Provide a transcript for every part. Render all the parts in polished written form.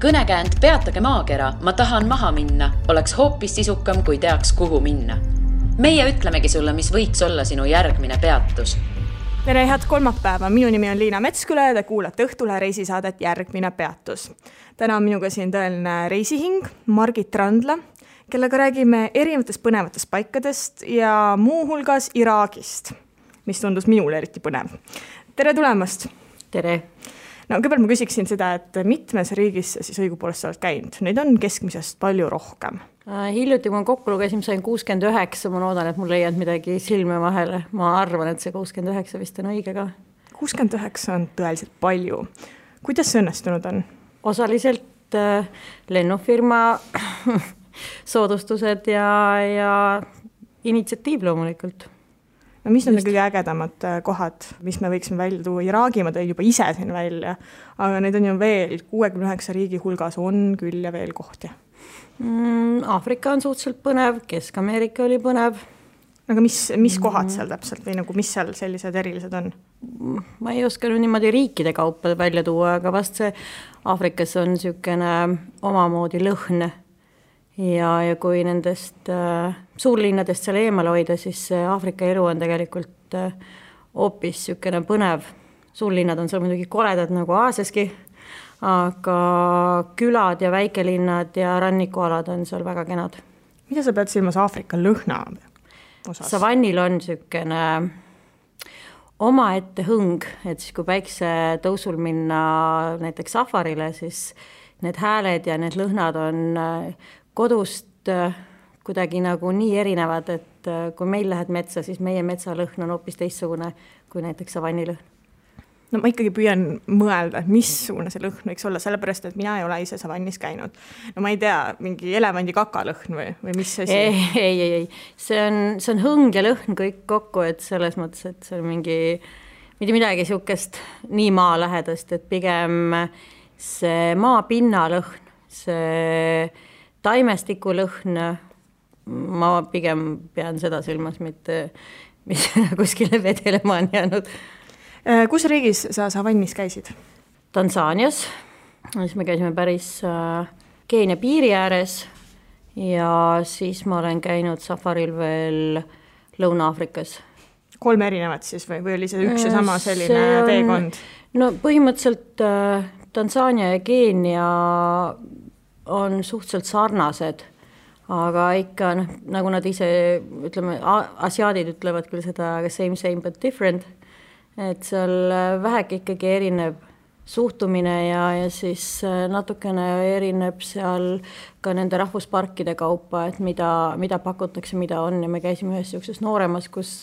Kõnekäänd Peatage maakera, ma tahan maha minna, oleks hoopis sisukam, kui teaks, kuhu minna. Meie ütlemegi sulle, mis võiks olla sinu järgmine peatus. Tere, head kolmapäeva. Minu nimi on Liina Metsküle ja te kuulate Õhtulehe reisisaadet Järgmine peatus. Täna on minuga siin tõeline reisihing, Margit Randla, kellega räägime erinevatest põnevatest paikadest ja muuhulgas Iraagist, mis tundus minule eriti põnev. Tere tulemast! Tere! No, kõigepealt ma küsiksin seda, et mitmes riigis siis õigupoolest oled käinud? Neid on keskmisest palju rohkem. Hiljuti, kui ma kokku lugesin, sain 69, ma loodan, et mul ei jäänud midagi silme vahele. Ma arvan, et see 69 vist on õige ka. 69 on tõeliselt palju. Kuidas see õnnestunud on? Osaliselt lennufirma soodustused ja initsiatiiv loomulikult. No mis on kõige ägedamad kohad, mis me võiksime välja tuua? Iraagi ma tõin juba ise siin välja, aga neid on ju veel 69 riigi hulgas on küll ja veel kohti. Aafrika on suhteliselt põnev, Kesk-Ameerika oli põnev. Aga mis kohad seal täpselt või nagu mis seal sellised erilised on? Ma ei oska niimoodi riikide kaupa välja tuua, aga vast see Aafrikas on niisugune omamoodi lõhn. Ja kui nendest suurlinnadest seal eemal hoida, siis Aafrika elu on tegelikult hoopis niisugune põnev. Suurlinnad on seal muidugi koledad nagu Aasiaski, aga külad ja väikelinnad ja rannikualad on seal väga kenad. Mida sa pead silmas Aafrika lõhna osas? Savannil on niisugune omaette hõng, et siis kui päikse tõusul minna näiteks safarile, siis need hääled ja need lõhnad on kodust kuidagi nagu nii erinevad, et kui meil lähed metsa, siis meie metsalõhn on hoopis teistsugune kui näiteks savannilõhn. No ma ikkagi püüan mõelda, et missugune see lõhn võiks olla, sellepärast, et mina ei ole ise savannis käinud. No ma ei tea, mingi elevandi kakalõhn või mis asi? Ei. See on hõng ja lõhn kõik kokku, et selles mõttes, et see on mitte midagi niisugust nii maa lähedast, et pigem see maapinna lõhn, see taimestiku lõhn, ma pigem pean seda silmas, mitte mis kuskile vedelema on jäänud. Kus riigis sa savannis käisid? Tansaanias, siis me käisime päris Keenia piiri ääres ja siis ma olen käinud safaril veel Lõuna-Aafrikas. 3 erinevat siis või oli see üks ja sama selline teekond? No põhimõtteliselt Tansaania ja Keenia on suhteliselt sarnased, aga ikka nagu nad ise, ütleme, asiaadid ütlevad küll seda same but different, et seal väheke ikkagi erineb suhtumine ja siis natukene erineb seal ka nende rahvusparkide kaupa, et mida pakutakse, mida on ja me käisime ühes niisuguses nooremas, kus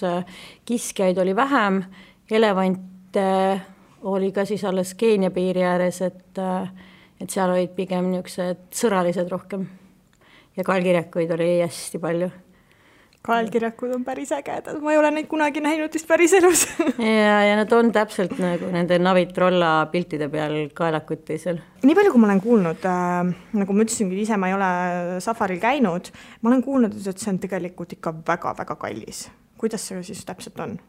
kiskjaid oli vähem, elevante oli ka siis alles Keenia piiri ääres, et seal olid pigem niisugused sõralised rohkem ja kaelkirjakuid oli hästi palju. Kaelkirjakud on päris ägedad, ma ei ole neid kunagi näinud vist päris elus. ja nad on täpselt nagu nende Navitrolla piltide peal kaelakuti seal. Nii palju, kui ma olen kuulnud, nagu ma ütlesingi, ise ma ei ole safaril käinud, ma olen kuulnud, et see on tegelikult ikka väga-väga kallis. Kuidas see siis täpselt on?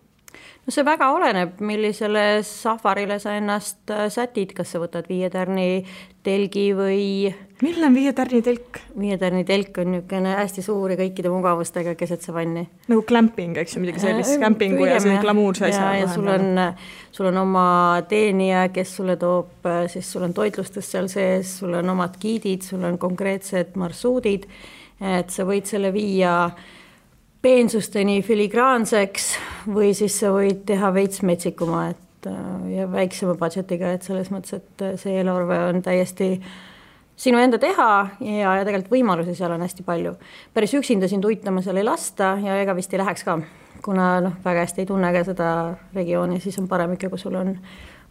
No see väga oleneb, millisele safarile sa ennast sätid, kas sa võtad 5 tärni telgi või... Milline on 5 tärni telk? 5 tärni telk on niisugune hästi suur ja kõikide mugavustega keset savanni. Nagu glamping, eks ju, midagi sellist, campingu ja see glamuurse asja. Ja sul on oma teenija, kes sulle toob, siis sul on toitlustus seal sees, sul on omad giidid, sul on konkreetsed marsuudid, et sa võid selle viia peensusteni filigraanseks või siis sa võid teha veits metsikuma ja väiksema budgetiga, et selles mõttes, et see eelarve on täiesti sinu enda teha ja tegelikult võimalusi seal on hästi palju. Päris üksinda siin tuitama seal ei lasta ja ega vist ei läheks ka, kuna väga hästi ei tunne ka seda regiooni, siis on parem ikka, kui sul on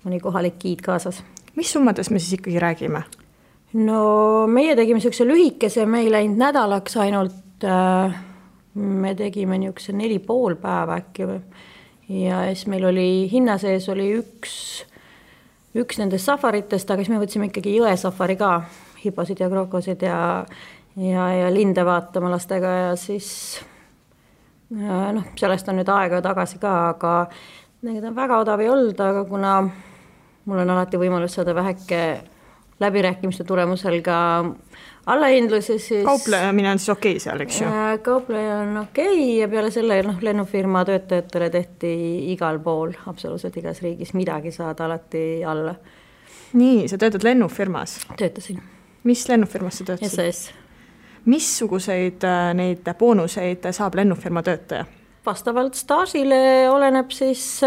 mõni kohalik giid kaasas. Mis summades me siis ikkagi räägime? No meie tegime niisuguse lühikese, me ei läinud nädalaks ainult... Me tegime niisuguse 4,5 päeva äkki ja siis meil oli hinna sees oli üks nendest safaritest, aga siis me võtsime ikkagi jõesafari ka, hiposid ja krokosid ja linde vaatama lastega ja siis sellest on nüüd aega tagasi ka, aga need on väga odav ei olnud, aga kuna mul on alati võimalus saada väheke läbirääkimiste tulemusel ka allahindlusi, siis kauplemine on siis okei seal, eks ju? Kaupleja on okei ja peale selle lennufirma töötajatele tehti igal pool, absoluutselt igas riigis midagi saada alati alla. Nii, sa töötad lennufirmas? Töötasin. Mis lennufirmas sa töötasid? SAS. Missuguseid neid boonuseid saab lennufirma töötaja? Vastavalt staažile oleneb siis,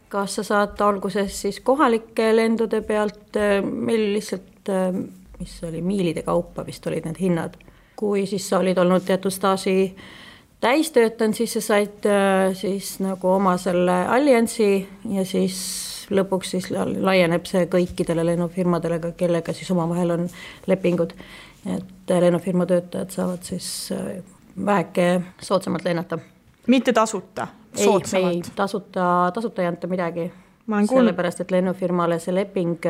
kas sa saad alguses siis kohalike lendude pealt, meil lihtsalt mis oli miilide kaupa vist olid need hinnad. Kui siis sa olid olnud teatud staaži täistöötanud, siis sa said siis nagu oma selle alliansi ja siis lõpuks siis laieneb see kõikidele lennufirmadele, kellega siis omavahel on lepingud. Et lennufirma töötajad saavad siis väheke soodsamalt lennata. Mitte tasuta, soodsamalt? Ei, tasuta ei anta midagi. Sellepärast, et lennufirmale see leping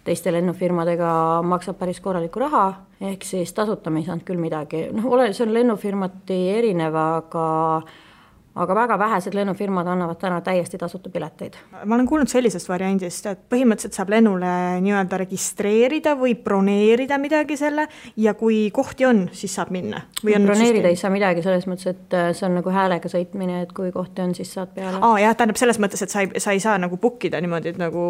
teiste lennufirmadega maksab päris korraliku raha, ehk siis tasuta me ei saanud küll midagi. See on lennufirmati erinev, aga väga vähesed lennufirmad annavad täna täiesti tasuta pileteid. Ma olen kuulnud sellisest variandist, et põhimõtteliselt saab lennule nii-öelda registreerida või broneerida midagi selle ja kui kohti on, siis saab minna. Broneerida ei saa midagi selles mõttes, et see on nagu häälega sõitmine, et kui kohti on, siis saad peale. Jah, tähendab selles mõttes, et sa ei saa nagu bookida niimoodi, et nagu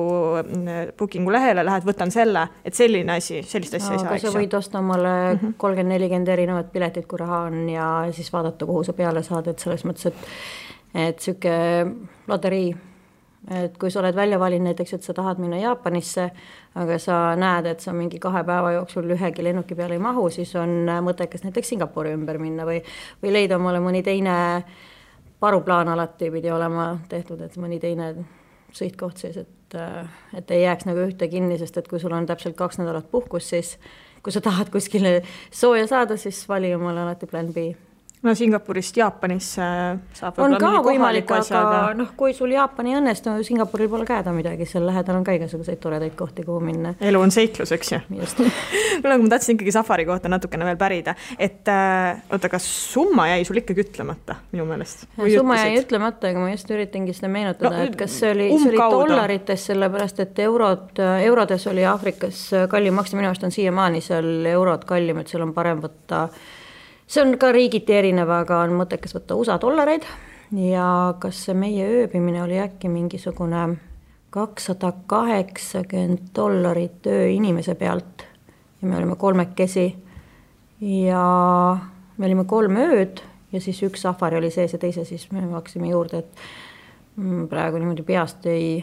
bookingu lehele lähed, võtan selle, et selline asi, sellist asja ei saa. Aga sa võid osta omale 30-40 erinevat piletit, kui raha on ja siis vaadata, kuhu sa peale saad, et selles mõttes, et süke loterii, et kui sa oled välja valinud näiteks, et sa tahad minna Jaapanisse, aga sa näed, et sa mingi 2 päeva jooksul ühegi lennuki peale ei mahu, siis on mõttekas näiteks Singapuri ümber minna või leida omale mõni teine paruplaan alati pidi olema tehtud, et mõni teine sõitkoht siis, et ei jääks nagu ühte kinni, sest et kui sul on täpselt 2 nädalat puhkus, siis kui sa tahad kuskile sooja saada, siis vali omale alati plan B. No Singapurist Jaapanisse saab on ka võimalik, aga kui sul Jaapani õnnestu, Singapuril pole käeda midagi, seal lähedal on ka igasuguseid toredaid kohti, kuhu minna. Elu on seiklus, eks ju? Just. Kuule, ma tahtsin ikkagi safari kohta natukene veel pärida, et kas summa jäi sul ikkagi ütlemata minu meelest? Summa jäi ütlemata, aga ma just üritangi seda meenutada, et kas see oli dollarites, sellepärast, et eurodes oli Aafrikas kallim maksta, minu arust on siiamaani seal eurod kallim, et seal on parem võtta. See on ka riigiti erinev, aga on mõttekas võtta USA dollareid ja kas see meie ööbimine oli äkki mingisugune $280 öö inimese pealt ja me olime 3 ja me olime 3 ööd ja siis 1 safari oli sees ja teise siis me maksime juurde, et praegu niimoodi peast ei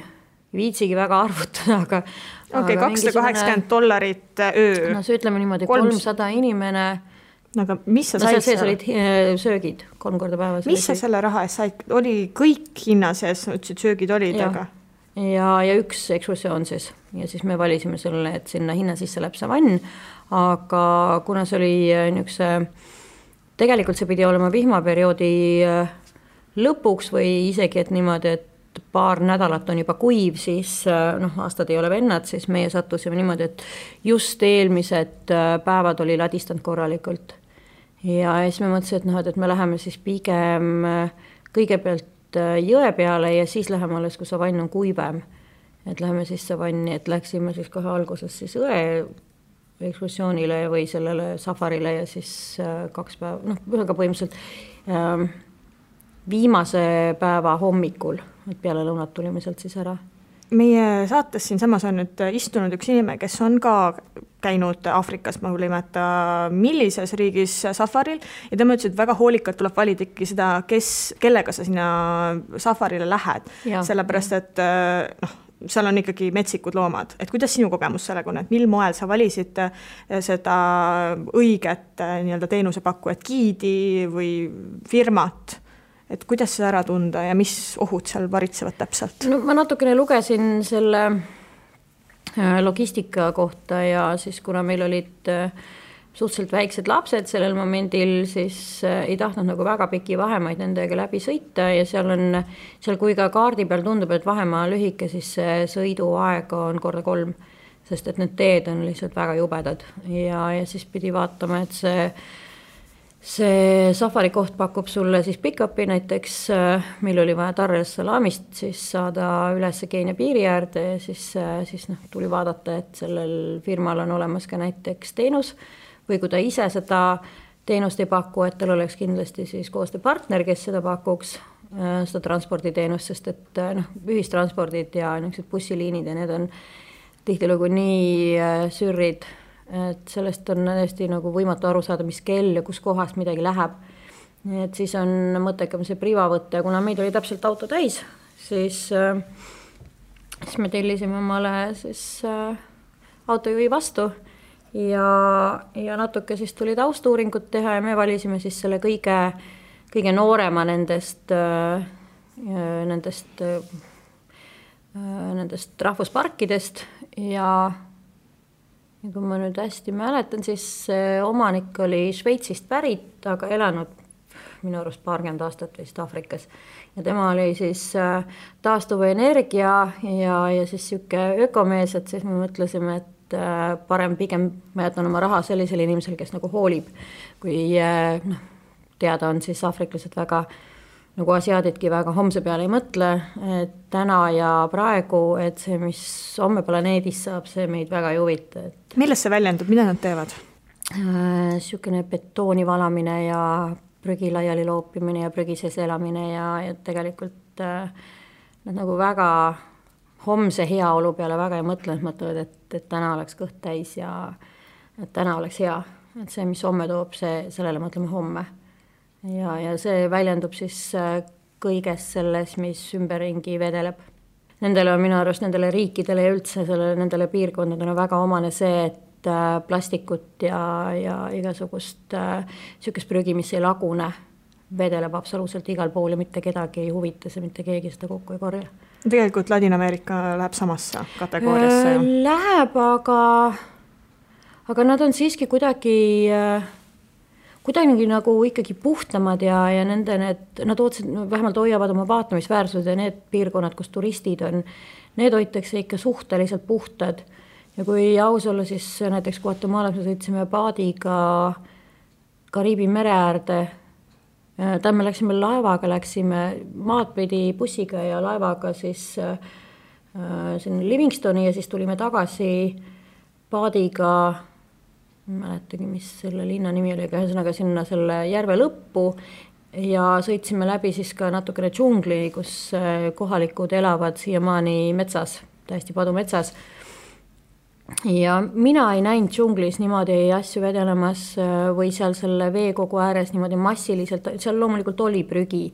viitsigi väga arvutada, aga $280 öö. No see ütleme niimoodi 300 inimene. Aga mis sa said sees olid söögid 3 korda päevas. Mis sa selle raha eest said? Oli kõik hinna sees, ütlesid söögid olid, aga? Ja 1 ekskursioon siis. Ja siis me valisime selle, et sinna hinna sisse läheb savann, aga kuna see oli niisuguse, tegelikult see pidi olema vihmaperioodi lõpuks või isegi, et niimoodi, et paar nädalat on juba kuiv, siis aastad ei ole vennad, siis meie sattusime niimoodi, et just eelmised päevad oli ladistanud korralikult. Ja siis me mõtlesin, et me läheme siis pigem kõigepealt jõe peale ja siis läheme alles, kui savann on kuivem. Et läheme siis savanni, et läksime siis kohe alguses siis õe ekskursioonile või sellele safarile ja siis 2 päeva, ühega põhimõtteliselt viimase päeva hommikul, et peale lõunat tulime sealt siis ära. Meie saates siin samas on nüüd istunud üks inimene, kes on ka käinud Aafrikas, ma küll imeta, millises riigis safaril ja tema ütles, et väga hoolikalt tuleb valida ikkagi seda, kellega sa sinna safarile lähed. Sellepärast, et seal on ikkagi metsikud loomad. Et kuidas sinu kogemus sellega on, et mil moel sa valisid seda õiget nii-öelda teenusepakkujat, giidi või firmat? Et kuidas see ära tunda ja mis ohud seal varitsevad täpselt? No, ma natukene lugesin selle logistika kohta ja siis kuna meil olid suhteliselt väiksed lapsed sellel momendil, siis ei tahtnud nagu väga piki vahemaid nendega läbi sõita ja seal kui ka kaardi peal tundub, et vahemaa lühike, siis see sõiduaeg on 3, sest et need teed on lihtsalt väga jubedad ja siis pidi vaatama, et see see safari koht pakub sulle siis pick-up'i, näiteks meil oli vaja Dar es Salaamist siis saada üles Keenia piiri äärde ja siis tuli vaadata, et sellel firmal on olemas ka näiteks teenus või kui ta ise seda teenust ei paku, et tal oleks kindlasti siis koostööpartner, kes seda pakuks, seda transporditeenust, sest et ühistranspordid ja niisugused bussiliinid ja need on tihtilugu nii sürrid, et sellest on hästi nagu võimatu aru saada, mis kell ja kus kohast midagi läheb. Et siis on mõttekam see priva võtta ja kuna meid oli täpselt auto täis, siis me tellisime omale siis autojuhi vastu ja natuke siis tuli taustuuringut teha ja me valisime siis selle kõige noorema nendest rahvusparkidest ja kui ma nüüd hästi mäletan, siis omanik oli Šveitsist pärit, aga elanud minu arust 20 aastat vist Aafrikas ja tema oli siis taastuva energia ja siis siuke ökomees, et siis me mõtlesime, et parem pigem ma jätan oma raha sellisele inimesele, kes nagu hoolib, kui teada on siis aafriklased väga nagu asiaadidki väga homse peale ei mõtle, et täna ja praegu, et see, mis homme planeedis saab, see meid väga ei huvita. Milles see väljendub, mida nad teevad? Siukene betooni valamine ja prügi laiali loopimine ja prügi sees elamine ja tegelikult nad nagu väga homse heaolu peale väga ei mõtle, et mõtlevad, et täna oleks kõht täis ja et täna oleks hea. Et see, mis homme toob, sellele mõtleme homme. Ja see väljendub siis kõiges selles, mis ümberringi vedeleb. Nendele on minu arust, nendele riikidele ja üldse nendele piirkondadele on väga omane see, et plastikut ja igasugust siukest prügi, mis ei lagune, vedeleb absoluutselt igal pool ja mitte kedagi ei huvita see, mitte keegi seda kokku ei korja. Tegelikult Ladina-Ameerika läheb samasse kategooriasse. Läheb, aga nad on siiski kuidagi nagu ikkagi puhtamad ja nad vähemalt hoiavad oma vaatamisväärsused ja need piirkonnad, kus turistid on, need hoitakse ikka suhteliselt puhtad. Ja kui aus olla, siis näiteks Guatemalas me sõitsime paadiga Kariibi mere äärde. Me läksime laevaga, läksime maad pidi bussiga ja laevaga siis sinna Livingstoni ja siis tulime tagasi paadiga, mäletagi, mis selle linna nimi oli, aga ühesõnaga sinna selle järve lõppu ja sõitsime läbi siis ka natukene džungli, kus kohalikud elavad siiamaani metsas, täiesti padumetsas. Ja mina ei näinud džunglis niimoodi asju vedelemas või seal selle veekogu ääres niimoodi massiliselt, seal loomulikult oli prügi,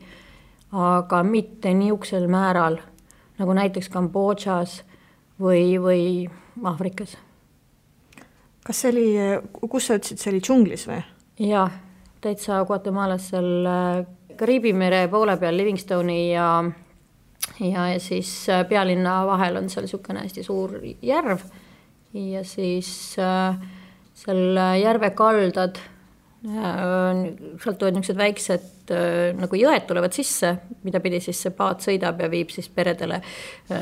aga mitte niisugusel määral, nagu näiteks Kambodžas või Aafrikas. Kas see oli, kus sa ütlesid, see oli džunglis või? Jaa, täitsa Guatemalas seal Kariibi mere poole peal Livingstoni ja siis pealinna vahel on seal niisugune hästi suur järv ja siis seal järve kaldad, sealt tulevad niisugused väiksed nagu jõed tulevad sisse, mida pidi siis see paat sõidab ja viib siis peredele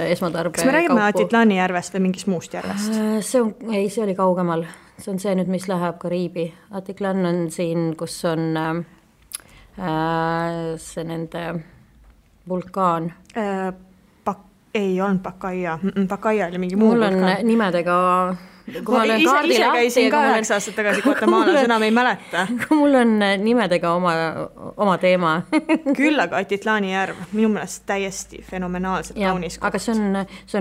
esmatarbe. Kas me räägime Atitlani järvest või mingist muust järvest? See oli kaugemal. See on see nüüd, mis läheb Kariibi. Atitlan on siin, kus on see nende vulkaan. Ei olnud Pakaia. Pakaia oli mingi muu vulkaan. Mul on nimedega... Ise käisin ka 9 aastat tagasi Guatemalas, enam ei mäleta. Mul on nimedega oma teema. Küll aga Atitlani järv, minu meelest täiesti fenomenaalselt kaunis koht. Aga see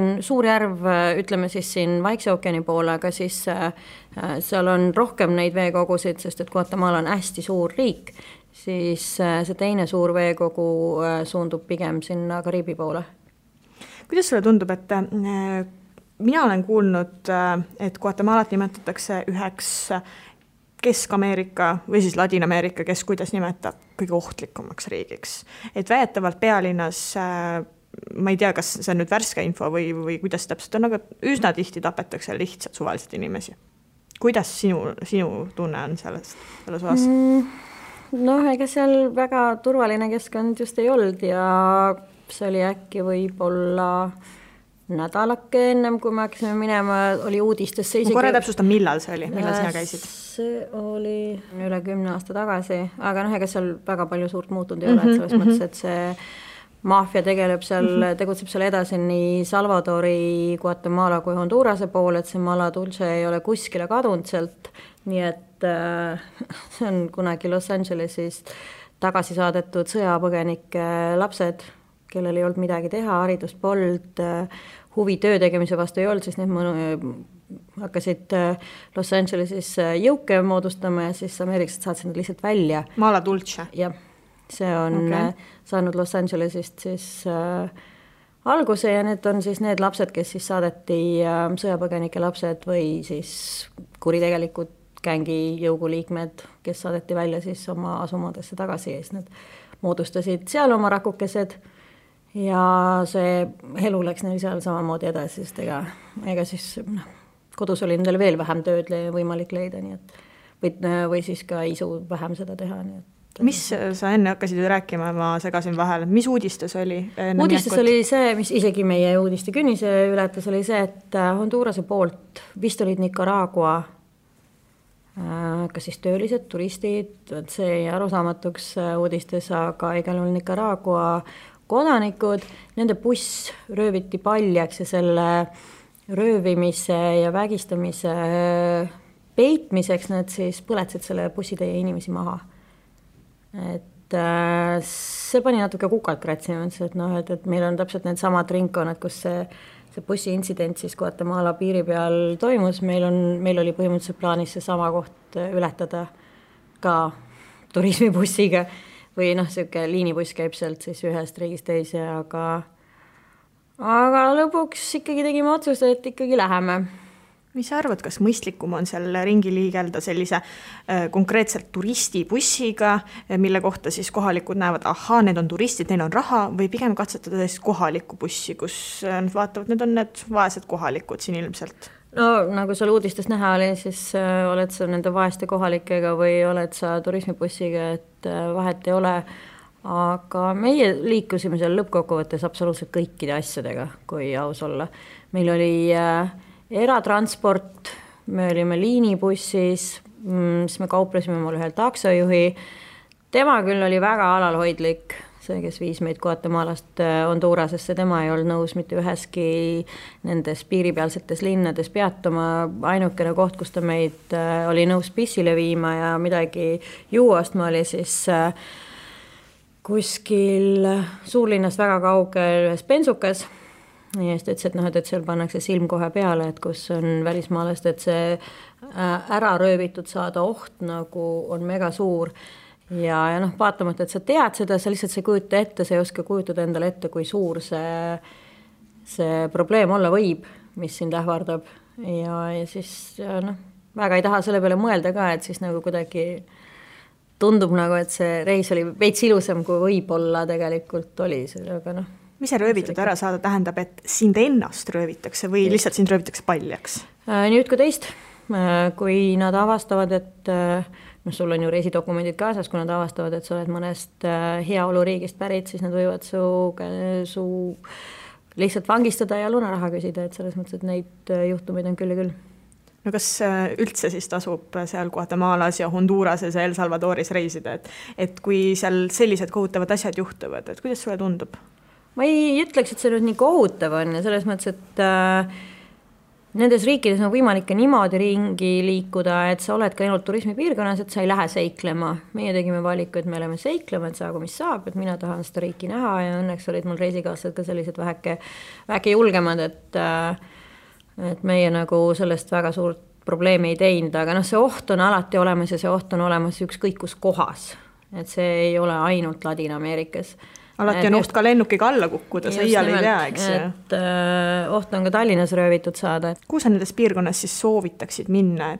on suur järv, ütleme siis siin Vaikse ookeani poole, aga siis seal on rohkem neid veekogusid, sest et Guatemala on hästi suur riik, siis see teine suur veekogu suundub pigem sinna Kariibi poole. Kuidas sulle tundub, et mina olen kuulnud, et Guatemalat nimetatakse üheks Kesk-Ameerika või siis Ladina-Ameerika, kes kuidas nimetab kõige ohtlikumaks riigiks. Et väidetavalt pealinnas, ma ei tea, kas see on nüüd värske info või kuidas täpselt on, aga üsna tihti tapetakse lihtsalt suvaliselt inimesi. Kuidas sinu tunne on selles osas? Ega seal väga turvaline keskkond just ei olnud ja see oli äkki võib-olla nädalake ennem, kui me hakkasime minema, oli uudistesse isegi... Ma korra täpsustan, millal see oli, millal sina käisid? See oli üle 10 aasta tagasi, aga ega seal väga palju suurt muutunud ei ole, et selles mõttes, et see maffia tegutseb seal edasi nii Salvadori, Guatemala kui Hondurase pool, et see Mala Dulce ei ole kuskile kadunud sealt, nii et see on kunagi Los Angelesis tagasi saadetud sõjapõgenike lapsed, kellel ei olnud midagi teha, haridust polnud, huvi töö tegemise vastu ei olnud, siis need hakkasid Los Angelesis jõuke moodustama ja siis ameeriklased saatsid nad lihtsalt välja. Mala Dulce? Jah, see on saanud Los Angelesist siis alguse ja need on siis need lapsed, kes siis saadeti sõjapõgenike lapsed või siis kuritegelikud gängi jõuguliikmed, kes saadeti välja siis oma asumadesse tagasi ja siis nad moodustasid seal oma rakukesed ja see elu läks neil seal samamoodi edasi, sest ega siis kodus oli nendel veel vähem tööd võimalik leida, nii et või siis ka isu vähem seda teha. Nii et, mis sa enne hakkasid rääkima, ma segasin vahel, mis uudistes oli? Uudistes oli see, mis isegi meie uudiste künnise ületas, oli see, et Hondurase poolt vist olid Nicaragua kas siis töölised, turistid, see jäi arusaamatuks uudistes, aga igal juhul Nicaragua kodanikud, nende buss rööviti paljaks ja selle röövimise ja vägistamise peitmiseks nad siis põletsid selle bussitäie inimesi maha. Et see pani natuke kukalt kratsima, et meil on täpselt need samad ringkonnad, kus see bussiintsident siis Guatemala piiri peal toimus, meil oli põhimõtteliselt plaanis see sama koht ületada ka turismibussiga või siuke liinibuss käib sealt siis ühest riigist teise, aga lõpuks ikkagi tegime otsuse, et ikkagi läheme. Mis sa arvad, kas mõistlikum on seal ringi liigelda sellise konkreetselt turistibussiga, mille kohta siis kohalikud näevad, need on turistid, neil on raha, või pigem katsetada siis kohalikku bussi, kus nad vaatavad, need on need vaesed kohalikud siin ilmselt? No nagu seal uudistes näha oli, siis oled sa nende vaeste kohalikega või oled sa turismibussiga, et vahet ei ole, aga meie liikusime seal lõppkokkuvõttes absoluutselt kõikide asjadega, kui aus olla. Meil oli eratransport, me olime liinibussis, siis me kauplesime mul ühel taksojuhi, tema küll oli väga alalhoidlik, see, kes viis meid Guatemalast Hondurasesse, tema ei olnud nõus mitte üheski nendes piiripealsetes linnades peatuma, ainukene koht, kus ta meid oli nõus pissile viima ja midagi juuastma oli siis kuskil suurlinnast väga kaugel ühes bensukas. Ja siis ütles, et seal pannakse silm kohe peale, et kus on välismaalast, et see ära röövitud saada oht nagu on mega suur. Ja vaatamata, et sa tead seda, sa lihtsalt sa kujuta ette, sa ei oska kujutada endale ette, kui suur see probleem olla võib, mis sind ähvardab. Ja siis väga ei taha selle peale mõelda ka, et siis nagu kuidagi tundub nagu, et see reis oli veits ilusam, kui võib-olla tegelikult oli. Aga mis see röövitud ära saada tähendab, et sind ennast röövitakse või lihtsalt sind röövitakse paljaks? Nüüd kui teist, kui nad avastavad, et sul on ju reisidokumendid kaasas, kui nad avastavad, et sa oled mõnest heaoluriigist pärit, siis nad võivad su lihtsalt vangistada ja lunaraha küsida, et selles mõttes, et neid juhtumeid on küll ja küll. No kas üldse siis tasub seal Guatemalas ja Hondurases ja El Salvadoris reisida, et kui seal sellised kohutavad asjad juhtuvad, et kuidas sulle tundub? Ma ei ütleks, et see nüüd nii kohutav on ja selles mõttes, et nendes riikides on võimalik ka niimoodi ringi liikuda, et sa oled ka ainult turismipiirkonnas, et sa ei lähe seiklema. Meie tegime valiku, et me oleme seiklema, et saagu mis saab, et mina tahan seda riiki näha ja õnneks olid mul reisikaaslased ka sellised väheke julgemad, et meie nagu sellest väga suurt probleemi ei teinud, aga see oht on alati olemas ja see oht on olemas ükskõik kus kohas, et see ei ole ainult Ladina-Ameerikas. Alati on oht ka lennukiga alla kukkuda, sa iial ei tea, eks ju. Et oht on ka Tallinnas röövitud saada. Kuhu sa nendes piirkonnas siis soovitaksid minna,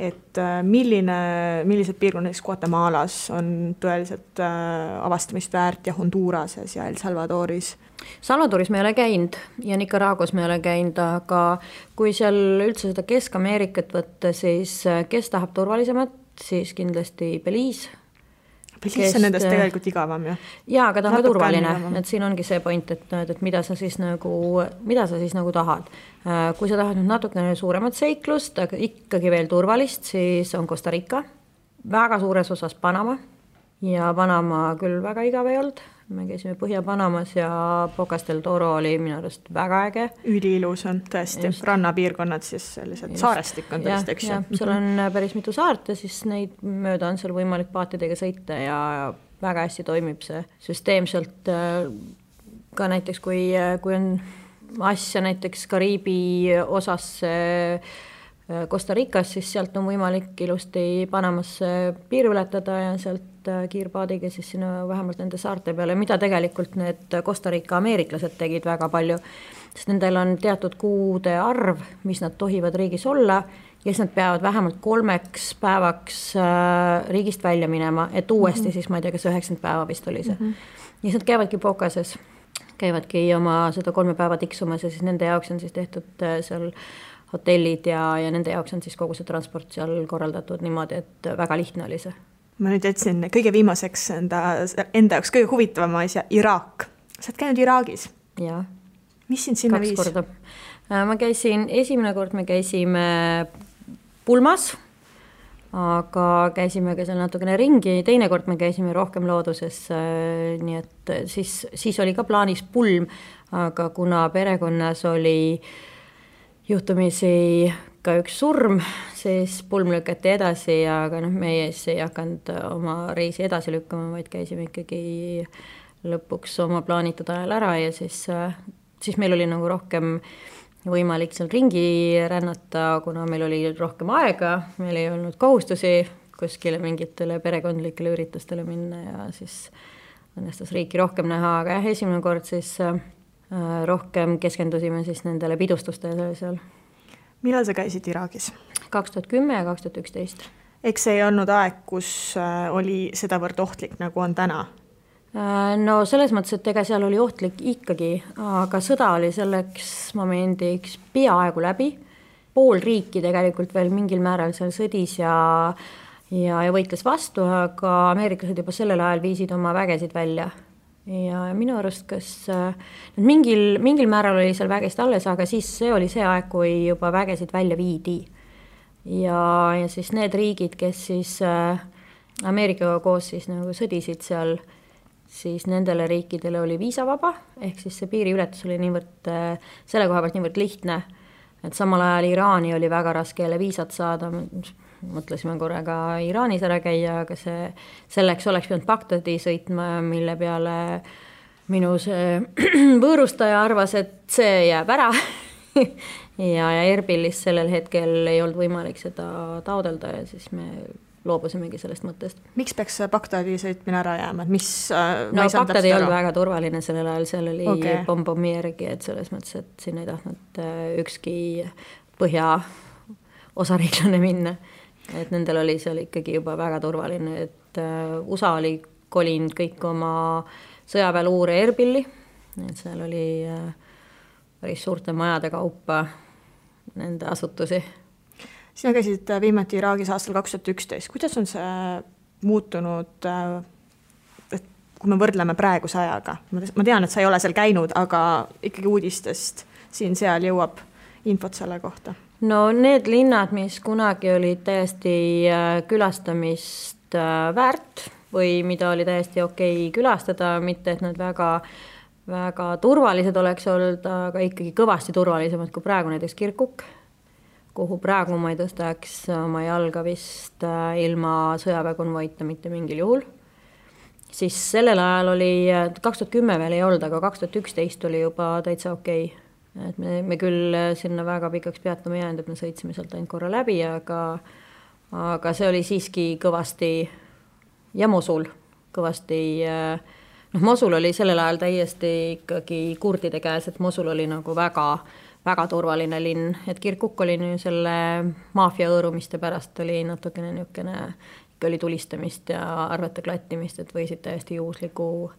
et millised piirkonnad Guatemalas on tõeliselt avastamist väärt ja Hondurases ja El Salvadoris? Salvadoris me ei ole käinud ja Nicaraguas me ei ole käinud, aga kui seal üldse seda Kesk-Ameerikat võtta, siis kes tahab turvalisemat, siis kindlasti Belize. Pilis on nendest tegelikult igavam ju. Jaa, aga ta on ka turvaline, et siin ongi see point, et mida sa siis nagu tahad. Kui sa tahad nüüd natukene suuremat seiklust, aga ikkagi veel turvalist, siis on Costa Rica, väga suures osas Panama ja Panama küll väga igav ei olnud. Me käisime Põhja-Panamas ja Bocas del Toro oli minu arust väga äge. Üliilus on tõesti, rannapiirkonnad siis sellised saarestik on tõesti, eks ju. Seal on päris mitu saart ja siis neid mööda on seal võimalik paatidega sõita ja väga hästi toimib see süsteemselt. Ka näiteks, kui on asja näiteks Kariibi osas Costa Ricas, siis sealt on võimalik ilusti Panamasse piir ületada ja sealt kiirpaadiga siis sinna vähemalt nende saarte peale, mida tegelikult need Costa Rica ameeriklased tegid väga palju, sest nendel on teatud kuude arv, mis nad tohivad riigis olla ja siis nad peavad vähemalt 3 päevaks riigist välja minema, et uuesti siis ma ei tea, kas 90 päeva vist oli see. Ja siis nad käivadki Bocases, käivadki oma seda 3 päeva tiksumas ja siis nende jaoks on siis tehtud seal hotellid ja nende jaoks on siis kogu see transport seal korraldatud niimoodi, et väga lihtne oli see. Ma nüüd jätsin kõige viimaseks enda jaoks kõige huvitavama asja, Iraak. Sa oled käinud Iraagis? Jaa. Mis sind sinna 2 korda. Esimene kord me käisime pulmas, aga käisime ka seal natukene ringi, teine kord me käisime rohkem looduses, nii et siis oli ka plaanis pulm, aga kuna perekonnas oli juhtumisi ka üks surm, siis pulm lükati edasi, aga meie ei hakanud oma reisi edasi lükkama, vaid käisime ikkagi lõpuks oma plaanitud ajal ära ja siis meil oli nagu rohkem võimalik seal ringi rännata, kuna meil oli rohkem aega, meil ei olnud kohustusi kuskile mingitele perekondlikele üritustele minna ja siis õnnestus riiki rohkem näha, aga esimene kord siis rohkem keskendusime siis nendele pidustustele seal. Millal sa käisid Iraagis? 2010 ja 2011. Eks see ei olnud aeg, kus oli sedavõrd ohtlik, nagu on täna? No selles mõttes, et ega seal oli ohtlik ikkagi, aga sõda oli selleks momendiks peaaegu läbi. Pool riiki tegelikult veel mingil määral seal sõdis ja võitles vastu, aga ameeriklased juba sellel ajal viisid oma vägesid välja. Ja minu arust, kas mingil määral oli seal vägesid alles, aga siis see oli see aeg, kui juba vägesid välja viidi. Ja siis need riigid, kes siis Ameerikaga koos siis nagu sõdisid seal, siis nendele riikidele oli viisavaba, ehk siis see piiriületus oli niivõrd, selle koha pealt niivõrd lihtne, et samal ajal Iraani oli väga raske jälle viisat saada, mõtlesime korraga Iraanis ära käia, aga selleks oleks pidanud Bagdadi sõitma, mille peale minu see võõrustaja arvas, et see jääb ära ja Erbilis sellel hetkel ei olnud võimalik seda taodelda ja siis me loobusimegi sellest mõttest. Miks peaks Bagdadi sõitmine ära jääma? Bagdad ei olnud väga turvaline sellel ajal, seal oli pommi järgi, et selles mõttes, et siin ei tahtnud ükski põhja osariiklane minna. Et nendel oli seal ikkagi juba väga turvaline, et USA oli kolinud kõik oma sõjaväeluure Erbilli, et seal oli päris suurte majade kaupa nende asutusi. Sina käisid viimati Iraagis aastal 2011. Kuidas on see muutunud, et kui me võrdleme praeguse ajaga? Ma tean, et sa ei ole seal käinud, aga ikkagi uudistest siin-seal jõuab infot selle kohta. No need linnad, mis kunagi olid täiesti külastamist väärt või mida oli täiesti okei külastada, mitte et nad väga turvalised oleks olnud, aga ikkagi kõvasti turvalisemad kui praegu näiteks Kirkuk, kuhu praegu ma ei tõstaks oma jalga vist ilma sõjaväekonvoita mitte mingil juhul. Siis sellel ajal oli, 2010 veel ei olnud, aga 2011 oli juba täitsa okei. Et me küll sinna väga pikaks peatama jäänud, et me sõitsime sealt ainult korra läbi, aga see oli siiski kõvasti ja Mosul kõvasti, Mosul oli sellel ajal täiesti ikkagi kurdide käes, et Mosul oli nagu väga, väga turvaline linn, et Kirkuk oli selle maafia õõrumiste pärast oli natukene niukene, ikka oli tulistamist ja arvete klattimist, et võisid täiesti juhusliku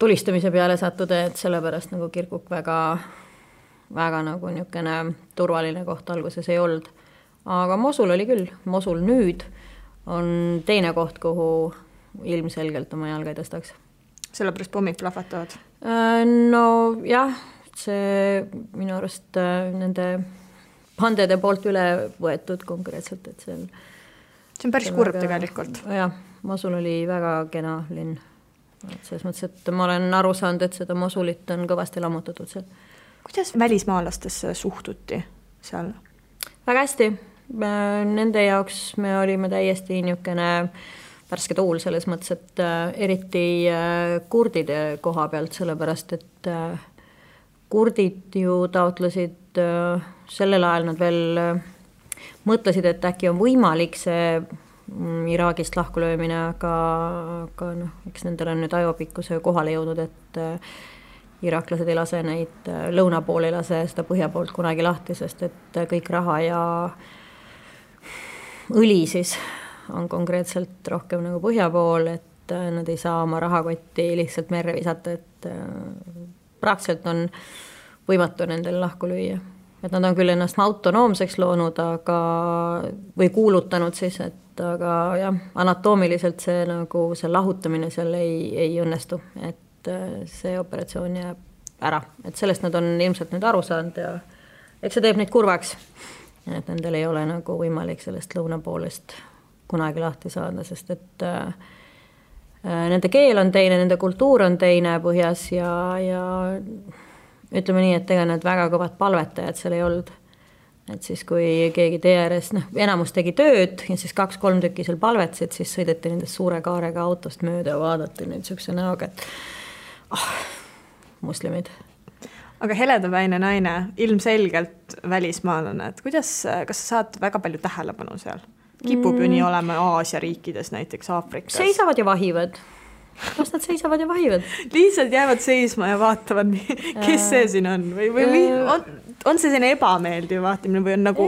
tulistamise peale sattuda, et sellepärast nagu Kirkuk väga nagu niukene turvaline koht alguses ei olnud. Aga Mosul oli küll. Mosul nüüd on teine koht, kuhu ilmselgelt oma jalga ei tõstaks. Sellepärast pommid plahvatavad? No jah, see minu arust nende bandede poolt üle võetud konkreetselt, et see on päris kurb tegelikult. Jah, Mosul oli väga kena linn. Selles mõttes, et ma olen aru saanud, et seda Mosulit on kõvasti lammutatud seal. Kuidas välismaalastesse suhtuti seal? Väga hästi. Nende jaoks me olime täiesti niisugune värske tuul selles mõttes, et eriti kurdide koha pealt, sellepärast, et kurdid ju taotlesid sellel ajal, nad veel mõtlesid, et äkki on võimalik see Iraagist lahkulöömine, aga noh, eks nendel on nüüd ajopikkuse kohale jõudnud, et iraklased ei lase neid lõuna pool, ei lase seda põhja poolt kunagi lahti, sest et kõik raha ja õli siis on konkreetselt rohkem nagu põhja pool, et nad ei saa oma rahakotti lihtsalt merre visata, et praktiliselt on võimatu nendel lahku lüüa. Et nad on küll ennast autonoomseks loonud, või kuulutanud siis, et aga jah, anatoomiliselt see, nagu see lahutamine seal ei õnnestu, et see operatsioon jääb ära. Et sellest nad on ilmselt nüüd aru saanud ja eks see teeb neid kurvaks. Et nendel ei ole nagu võimalik sellest lõuna poolest kunagi lahti saada, sest et nende keel on teine, nende kultuur on teine põhjas ja ütleme nii, et ega need väga kõvad palvetajad seal ei olnud. Et siis kui keegi tee ääres, enamus tegi tööd ja siis 2-3 tükki seal palvetsid, siis sõideti nendest suure kaarega autost mööda ja vaadati nüüd siukse näoga, et muslimid. Aga heledapäine naine, ilmselgelt välismaalane, et kas sa saad väga palju tähelepanu seal? Kipub ju nii olema Aasia riikides, näiteks Aafrikas. Seisavad ja vahivad. Kas nad seisavad ja vahivad? Lihtsalt jäävad seisma ja vaatavad, kes see siin on? Või on see selline ebameeldiv vaatamine või on nagu...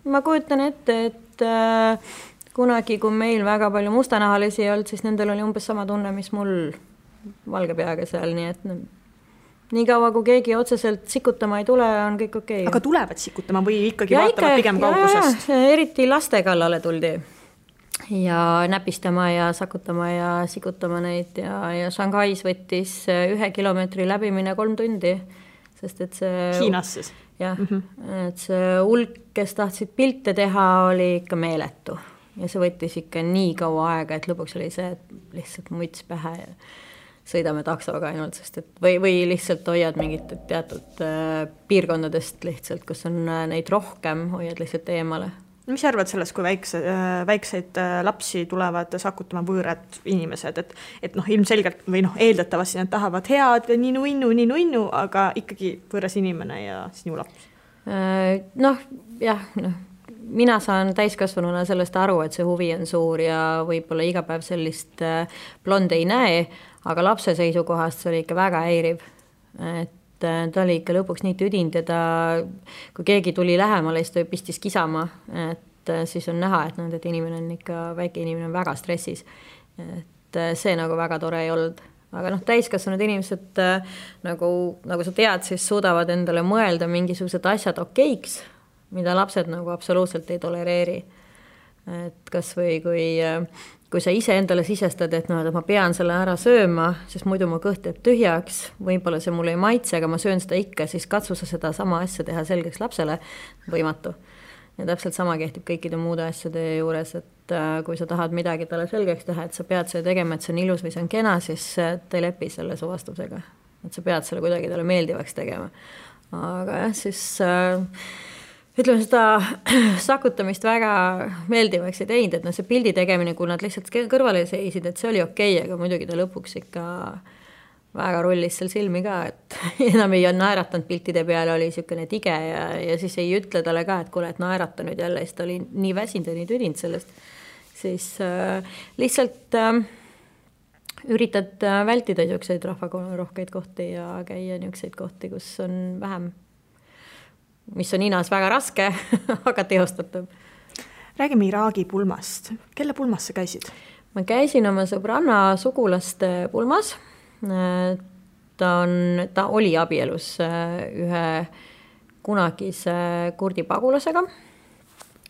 Ma kujutan ette, et kunagi, kui meil väga palju mustanahalisi ei olnud, siis nendel oli umbes sama tunne, mis mul valge peaga seal, nii et nii kaua, kui keegi otseselt sikutama ei tule, on kõik okei. Aga tulevad sikutama või ikkagi vaatavad pigem kaugusest? Eriti laste kallale tuldi ja näpistama ja sakutama ja sikutama neid ja Shanghais võttis 1 kilomeetri läbimine 3 tundi, sest et see... Hiinas siis? Jah, et see hulk, kes tahtsid pilte teha, oli ikka meeletu ja see võttis ikka nii kaua aega, et lõpuks oli see, et lihtsalt muts pähe ja sõidame taksoga ainult, sest et või lihtsalt hoiad mingit teatud piirkondadest lihtsalt, kus on neid rohkem, hoiad lihtsalt eemale. Mis arvad sellest, kui väikseid lapsi tulevad sakutama võõrad inimesed, et ilmselgelt või eeldatavasti nad tahavad head ninu, aga ikkagi võõras inimene ja sinu laps? Mina saan täiskasvanuna sellest aru, et see huvi on suur ja võib-olla iga päev sellist blonde ei näe, aga lapse seisukohast see oli ikka väga häiriv. Et ta oli ikka lõpuks nii tüdind ja kui keegi tuli lähemale, siis ta pistis kisama, et siis on näha, et inimene on ikka, väike inimene on väga stressis. Et see nagu väga tore ei olnud. Aga täiskasvanud inimesed, nagu sa tead, siis suudavad endale mõelda mingisugused asjad okeiks, mida lapsed nagu absoluutselt ei tolereeri. Et kas või kui sa ise endale sisestad, et ma pean selle ära sööma, sest muidu mu kõht jääb tühjaks, võib-olla see mulle ei maitse, aga ma söön seda ikka, siis katsu sa seda sama asja teha selgeks lapsele, võimatu. Ja täpselt sama kehtib kõikide muude asjade juures, et kui sa tahad midagi talle selgeks teha, et sa pead seda tegema, et see on ilus või see on kena, siis ta ei lepi selle su vastusega. Et sa pead selle kuidagi talle meeldivaks tegema. Aga jah, siis... ütleme, seda sakutamist väga meeldivaks ei teinud, et see pildi tegemine, kui nad lihtsalt kõrvale seisid, et see oli okei, aga muidugi ta lõpuks ikka väga rullis seal silmi ka, et enam ei naeratanud piltide peale, oli niisugune tige ja siis ei ütle talle ka, et kuule, et naerata nüüd jälle, siis ta oli nii väsinud ja nii tüdinud sellest. Siis lihtsalt üritad vältida niisuguseid rahvarohkeid kohti ja käia niisuguseid kohti, kus on vähem, mis on Hiinas väga raske, aga teostatav. Räägime Iraagi pulmast. Kelle pulmas sa käisid? Ma käisin oma sõbranna sugulaste pulmas. Ta oli abielus ühe kunagise kurdi pagulasega,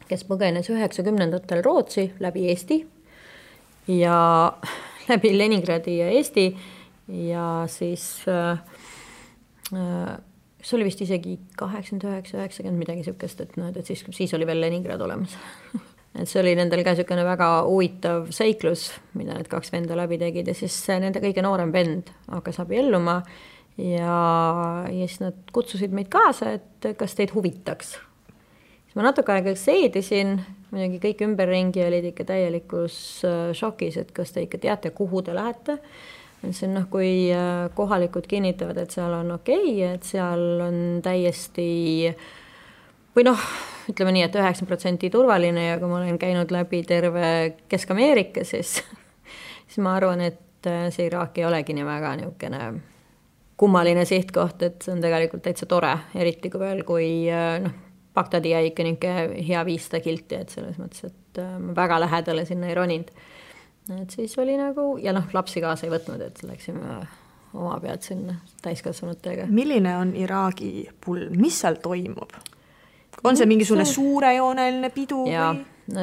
kes põgenes 90-ndatel Rootsi läbi Eesti ja läbi Leningradi ja Eesti ja siis see oli vist isegi 89-90 midagi sükest, et siis oli veel Leningrad olemas. Et see oli nendel ka niisugune väga huvitav seiklus, mida need 2 venda läbi tegid ja siis nende kõige noorem vend hakkas abielluma ja siis nad kutsusid meid kaasa, et kas teid huvitaks. Siis ma natuke aega seedisin, muidugi kõik ümberringi olid ikka täielikus šokis, et kas te ikka teate, kuhu te lähete. See on kui kohalikud kinnitavad, et seal on okei, et seal on täiesti või ütleme nii, et 90% turvaline ja kui ma olen käinud läbi terve Kesk-Ameerika, siis ma arvan, et see Iraak ei olegi nii väga niisugune kummaline sihtkoht, et see on tegelikult täitsa tore, eriti kui veel, kui Bagdadi jäi ikka niisugune hea 500 kilti, et selles mõttes, et ma väga lähedale sinna ei roninud. Et siis oli ja lapsi kaasa ei võtnud, et läksime oma pealt sinna täiskasvanutega. Milline on Iraagi pulm? Mis seal toimub? On see mingisugune suurejooneline pidu? Ja,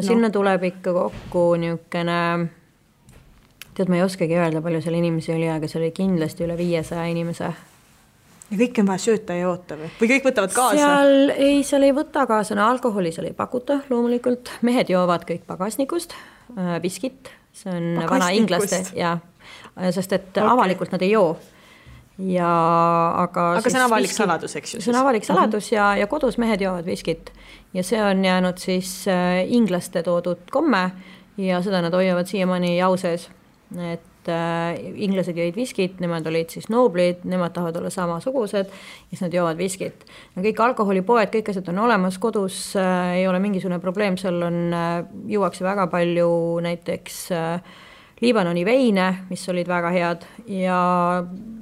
sinna tuleb ikka kokku niisugune, tead, ma ei oskagi öelda, palju seal inimesi oli, aga see oli kindlasti üle 500 inimese. Ja kõik on vaja sööta ja joota või kõik võtavad kaasa? Seal ei võta kaasa, alkoholi seal ei pakuta loomulikult. Mehed joovad kõik pagasnikust, viskit, see on vana inglaste, sest et avalikult nad ei joo. Aga see on avalik saladus, eks ju? See on avalik saladus ja kodus mehed joovad viskit ja see on jäänud siis inglaste toodud komme ja seda nad hoiavad siiamaani jau sees, et inglased jõid viskit, nemad olid siis nooblid, nemad tahavad olla samasugused ja siis nad joovad viskit. Kõik alkoholipoed, kõik asjad on olemas, kodus ei ole mingisugune probleem, seal juuakse väga palju näiteks Liibanoni veine, mis olid väga head ja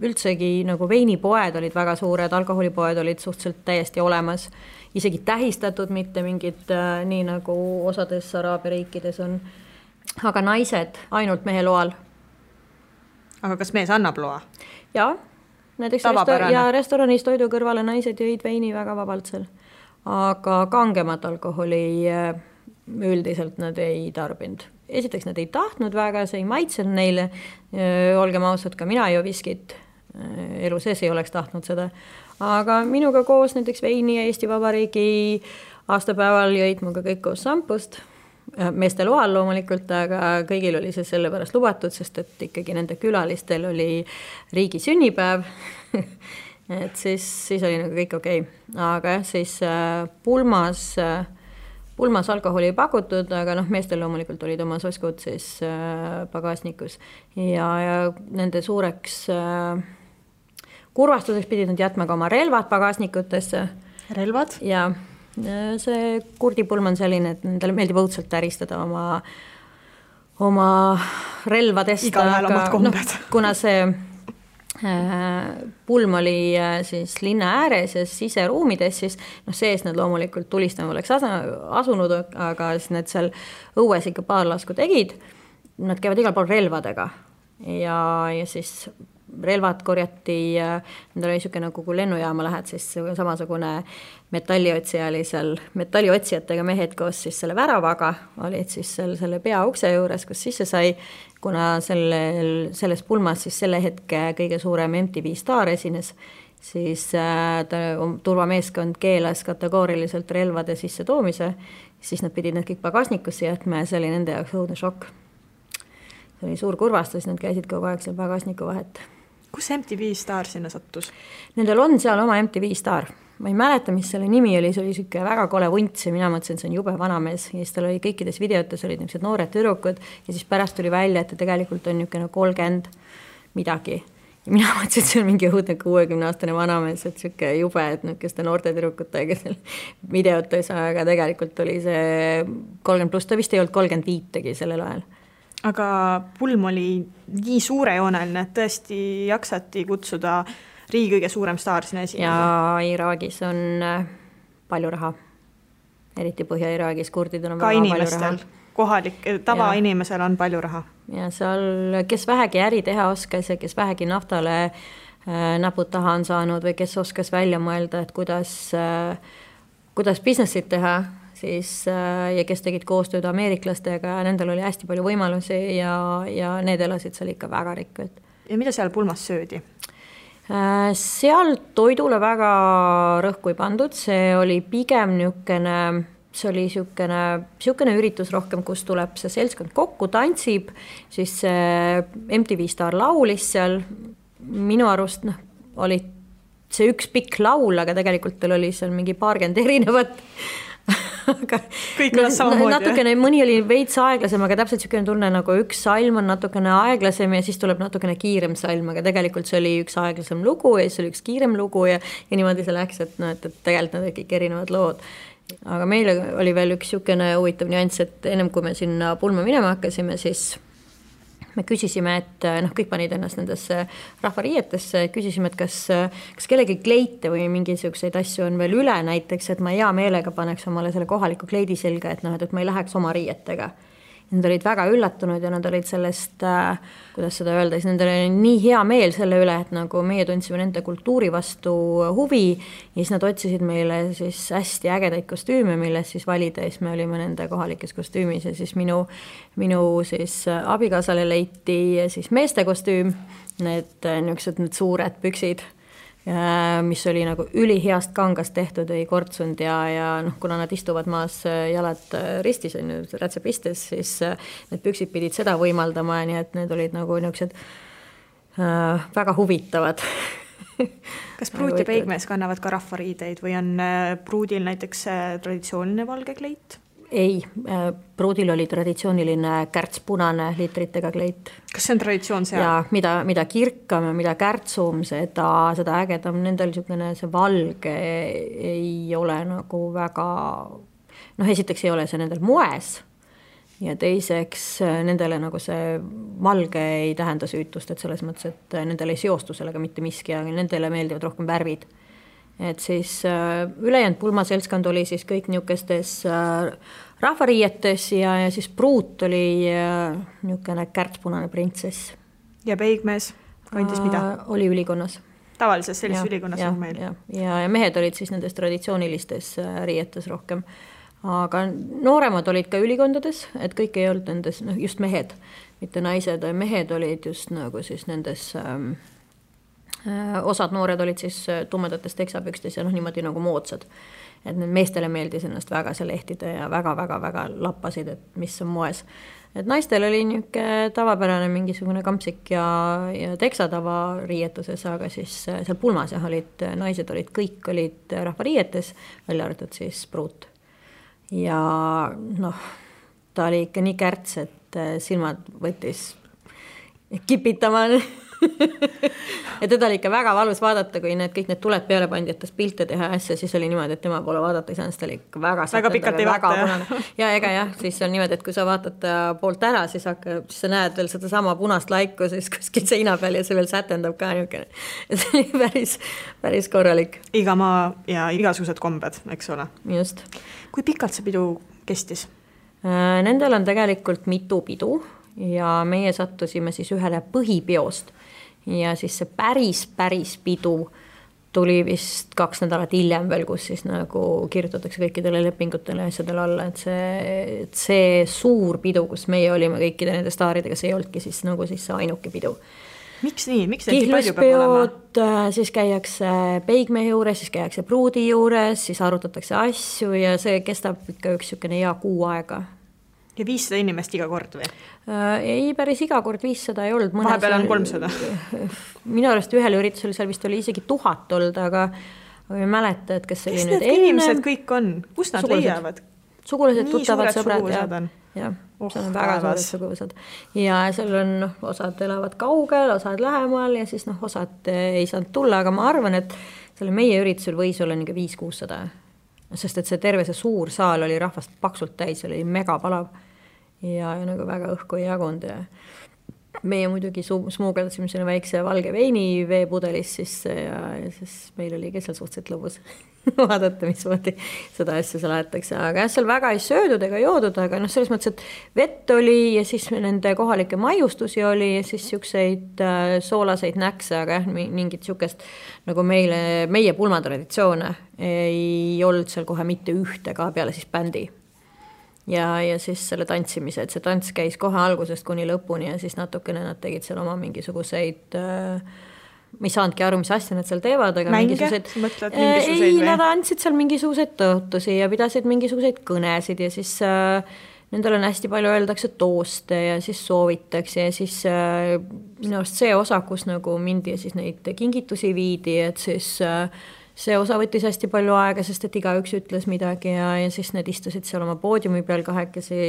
üldsegi veinipoed olid väga suured, alkoholipoed olid suhteliselt täiesti olemas, isegi tähistatud, mitte mingid nii nagu osades Araabia riikides on, aga naised ainult mehe loal. Aga kas mees annab loa? Jaa, näiteks restoranis toidu kõrvale naised jõid veini väga vabalt seal, aga kangemat alkoholi üldiselt nad ei tarbinud. Esiteks nad ei tahtnud väga, see ei maitsenud neile, olgem ausad, ka mina ei joo viskit, elu sees ei oleks tahtnud seda, aga minuga koos näiteks veini ja Eesti Vabariigi aastapäeval jõid muga kõik koos sampust, meeste loal loomulikult, aga kõigil oli see selle pärast lubatud, sest et ikkagi nende külalistel oli riigi sünnipäev, et siis oli kõik okei. Aga siis pulmas alkoholi ei pakutud, aga meestel loomulikult olid oma soskud siis pagasnikus ja nende suureks kurvastuseks pidid nad jätma ka oma relvad pagasnikutesse. Relvad? Ja see kurdipulm on selline, et nendele meeldib õudselt täristada oma relvadest. Igal omad kombed. Kuna see pulm oli siis linna ääres ja siseruumides, siis sees nad loomulikult tulistama oleks asunud, aga siis need seal õues ikka paar lasku tegid. Nad käivad igal pool relvadega ja siis relvad korjati, nendel oli niisugune kui lennujaama lähed, siis samasugune metalliotsija oli seal, metalliotsijatega mehed koos siis selle väravaga, olid siis selle peaukse juures, kus sisse sai, kuna selles pulmas siis selle hetke kõige suurem MTV Star esines, siis turvameeskond keelas kategooriliselt relvade sisse toomise, siis nad pidid need kõik pagasnikusse jätma ja see oli nende jaoks õudne šokk. See oli suur kurvastus, nad käisid kogu aeg seal pagasniku vahet. Kus MTV Star sinna sattus? Nendel on seal oma MTV Star. Ma ei mäleta, mis selle nimi oli, see oli siuke väga kole vunts ja mina mõtlesin, see on jube vanamees ja siis tal oli kõikides videotes olid niisugused noored tüdrukud ja siis pärast tuli välja, et ta tegelikult on niisugune 30 midagi. Ja mina mõtlesin, et see on mingi õudne 60-aastane vanamees, et siuke jube, et niisuguste noorte tüdrukutega seal videotes, aga tegelikult oli see 30+, ta vist ei olnud 35 sellel ajal. Aga pulm oli nii suurejooneline, et tõesti jaksati kutsuda riigi kõige suurem staar sinna esine. Ja Iraagis on palju raha. Eriti Põhja-Iraagis kurdidel on ka väga inimestel, palju raha. Kohalik, tavainimesel on palju raha. Ja seal, kes vähegi äri teha oskas ja kes vähegi naftale näpud taha on saanud või kes oskas välja mõelda, et kuidas businessit teha, siis, ja kes tegid koostööd ameeriklastega, nendel oli hästi palju võimalusi ja need elasid seal ikka väga rikkad. Ja mida seal pulmas söödi? Seal toidule väga rõhku ei pandud, see oli pigem see oli siukene üritus rohkem, kus tuleb see seltskond kokku, tantsib, siis MTV Star laulis seal, minu arust oli see üks pikk laul, aga tegelikult tal oli seal mingi paarkümmend erinevat. Aga kõik on samamoodi. Natukene, mõni oli veits aeglasem, aga täpselt siukene tunne, nagu üks salm on natukene aeglasem ja siis tuleb natukene kiirem salm, aga tegelikult see oli üks aeglasem lugu ja siis oli üks kiirem lugu ja niimoodi see läks, et tegelikult nad kõik erinevad lood. Aga meil oli veel üks siukene huvitav nüanss, et ennem kui me sinna pulma minema hakkasime, siis me küsisime, et kõik panid ennast nendesse rahvariietesse, küsisime, et kas kellegi kleite või mingisuguseid asju on veel üle näiteks, et ma hea meelega paneks omale selle kohaliku kleidi selga, et ma ei läheks oma riietega. Nad olid väga üllatunud ja nad olid sellest, kuidas seda öelda, siis nendel oli nii hea meel selle üle, et nagu meie tundsime nende kultuuri vastu huvi ja siis nad otsisid meile siis hästi ägedaid kostüüme, milles siis valida ja siis me olime nende kohalikes kostüümis ja siis minu siis abikaasale leiti siis meeste kostüüm, need suured püksid, mis oli nagu üliheast kangast tehtud, ei kortsunud ja kuna nad istuvad maas jalad ristis, rätsepistes, siis need püksid pidid seda võimaldama, nii et need olid nagu niisugused väga huvitavad. Kas pruut ja peigmees kannavad ka rahvariideid või on pruudil näiteks traditsiooniline valge kleit? Ei, pruudil oli traditsiooniline kärtspunane liitritega kleit. Kas see on traditsioon seal? Ja mida kirkam ja mida kärtsum, seda ägedam. Nendel see valge ei ole nagu väga, esiteks ei ole see nendel moes ja teiseks nendele nagu see valge ei tähenda süütust, et selles mõttes, et nendel ei seostu sellega mitte miski, aga nendele meeldivad rohkem värvid. Et siis ülejäänud pulmaseltskond oli siis kõik niisugustes rahvariietes ja siis pruut oli niisugune kärtspunane printsess. Ja peigmees kandis mida? Oli ülikonnas. Tavalises sellises ülikonnas on meil. Ja mehed olid siis nendes traditsioonilistes riietes rohkem. Aga nooremad olid ka ülikondades, et kõik ei olnud nendes, just mehed, mitte naised, mehed olid just nagu siis nendes osad noored olid siis tumedates teksapükstes ja niimoodi nagu moodsad. Et need meestele meeldis ennast väga see lehtida ja väga lappasid, et mis on moes. Et naistel oli niisugune tavapärane mingisugune kampsik ja teksatava riietuses, aga siis seal pulmas naised kõik olid rahvariietes, välja arvatud siis pruut. Ja ta oli ikka nii kärts, et silmad võttis kipitama. Ja teda oli ikka väga valus vaadata, kui kõik need tuled peale pandi, et pilte teha asja, siis oli niimoodi, et tema poole vaadata ei saanud, ta oli ikka väga pikalt ei vaata. Ja ega siis on niimoodi, et kui sa vaatad poolt ära, siis sa näed veel seda sama punast laiku siis kuskil seina peal ja see veel sätendab ka niisugune. See oli päris korralik. Iga maa ja igasugused kombed, eks ole. Just. Kui pikalt see pidu kestis? Nendel on tegelikult mitu pidu ja meie sattusime siis ühele põhipiost ja siis see päris pidu tuli vist 2 nädalat hiljem veel, kus siis nagu kirjutatakse kõikidele lepingutele asjadele alla, et see suur pidu, kus meie olime kõikide nende staaridega, see ei olnudki siis nagu siis see ainuke pidu. Miks nii? Miks neid palju peab olema? Siis käiakse peigmehe juures, siis käiakse pruudi juures, siis arutatakse asju ja see kestab ikka üks hea kuu aega. Ja 500 inimest iga kord või? Ei, päris iga kord 500 ei olnud. Vahepeal on 300. Minu arust ühel üritusel seal vist oli isegi 1000 olnud, aga ei mäleta, et kes oli nüüd enne. Kes need inimesed kõik on? Kus nad leiavad? Sugulased, tuttavad, sõbrad. Ja, see on väga suured suguvõsad. Ja seal on osad elavad kaugel, osad lähemal ja siis osad ei saanud tulla, aga ma arvan, et selle meie üritusel võis olla 500-600. Sest et see terve see suur saal oli rahvast paksult täis, oli mega palav ja nagu väga õhku ei jagunud meie muidugi smuugeldasime selle väikse valge veini veepudelis sisse ja siis meil oli ka seal suhteliselt lõbus vaadata, mismoodi seda asja seal aetakse. Aga jah, seal väga ei söödud ega joodud, aga selles mõttes, et vett oli ja siis nende kohalikke maiustusi oli ja siis siukseid soolaseid näkse, aga jah, mingit siukest nagu meie pulmatraditsioone ei olnud seal kohe mitte ühte ka peale siis bändi. Ja siis selle tantsimise, et see tants käis kohe algusest kuni lõpuni ja siis natukene nad tegid seal oma mingisuguseid, ma ei saanudki aru, mis asja nad seal teevad, aga mänge? Mingisuguseid, ei, nad andsid seal mingisuguseid tõotusi ja pidasid mingisuguseid kõnesid ja siis nendel on hästi palju öeldakse tooste ja siis soovitakse ja siis minu arust see osa, kus nagu mindi ja siis neid kingitusi viidi, et siis see osa võttis hästi palju aega, sest et igaüks ütles midagi ja siis need istusid seal oma poodiumi peal kahekesi,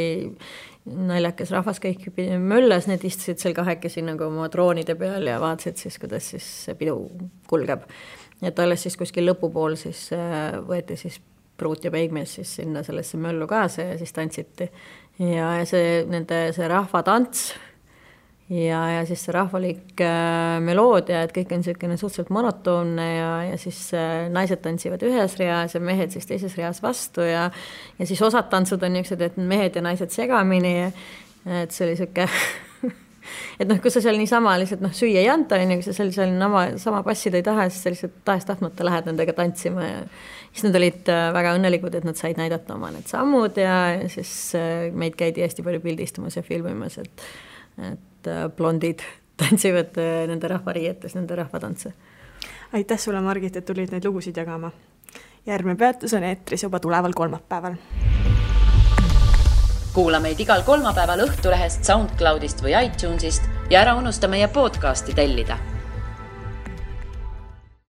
naljakas rahvas kõik möllas, need istusid seal kahekesi nagu oma troonide peal ja vaatasid siis, kuidas siis see pidu kulgeb. Et alles siis kuskil lõpupool siis võeti siis pruut ja peigmees siis sinna sellesse möllu kaasa ja siis tantsiti. Ja see rahvatants ja siis see rahvalik meloodia, et kõik on selline suhteliselt monotoonne ja siis naised tantsivad ühes reas ja mehed siis teises reas vastu ja siis osad tantsud on niisugused, et mehed ja naised segamini, et see oli siuke et kui sa seal niisama lihtsalt süüa ei anta, kui sa seal sama passida ei taha, siis sa lihtsalt tahes-tahtmata lähed nendega tantsima ja siis nad olid väga õnnelikud, et nad said näidata oma need sammud ja siis meid käidi hästi palju pildistamas ja filmimas, et blondid tantsivad nende rahvariietes, nende rahvatantse. Aitäh sulle, Margit, et tulid neid lugusid jagama. Järgmine peatus on eetris juba tuleval kolmapäeval. Kuula meid igal kolmapäeval Õhtulehest, SoundCloudist või iTunesist ja ära unusta meie podcasti tellida.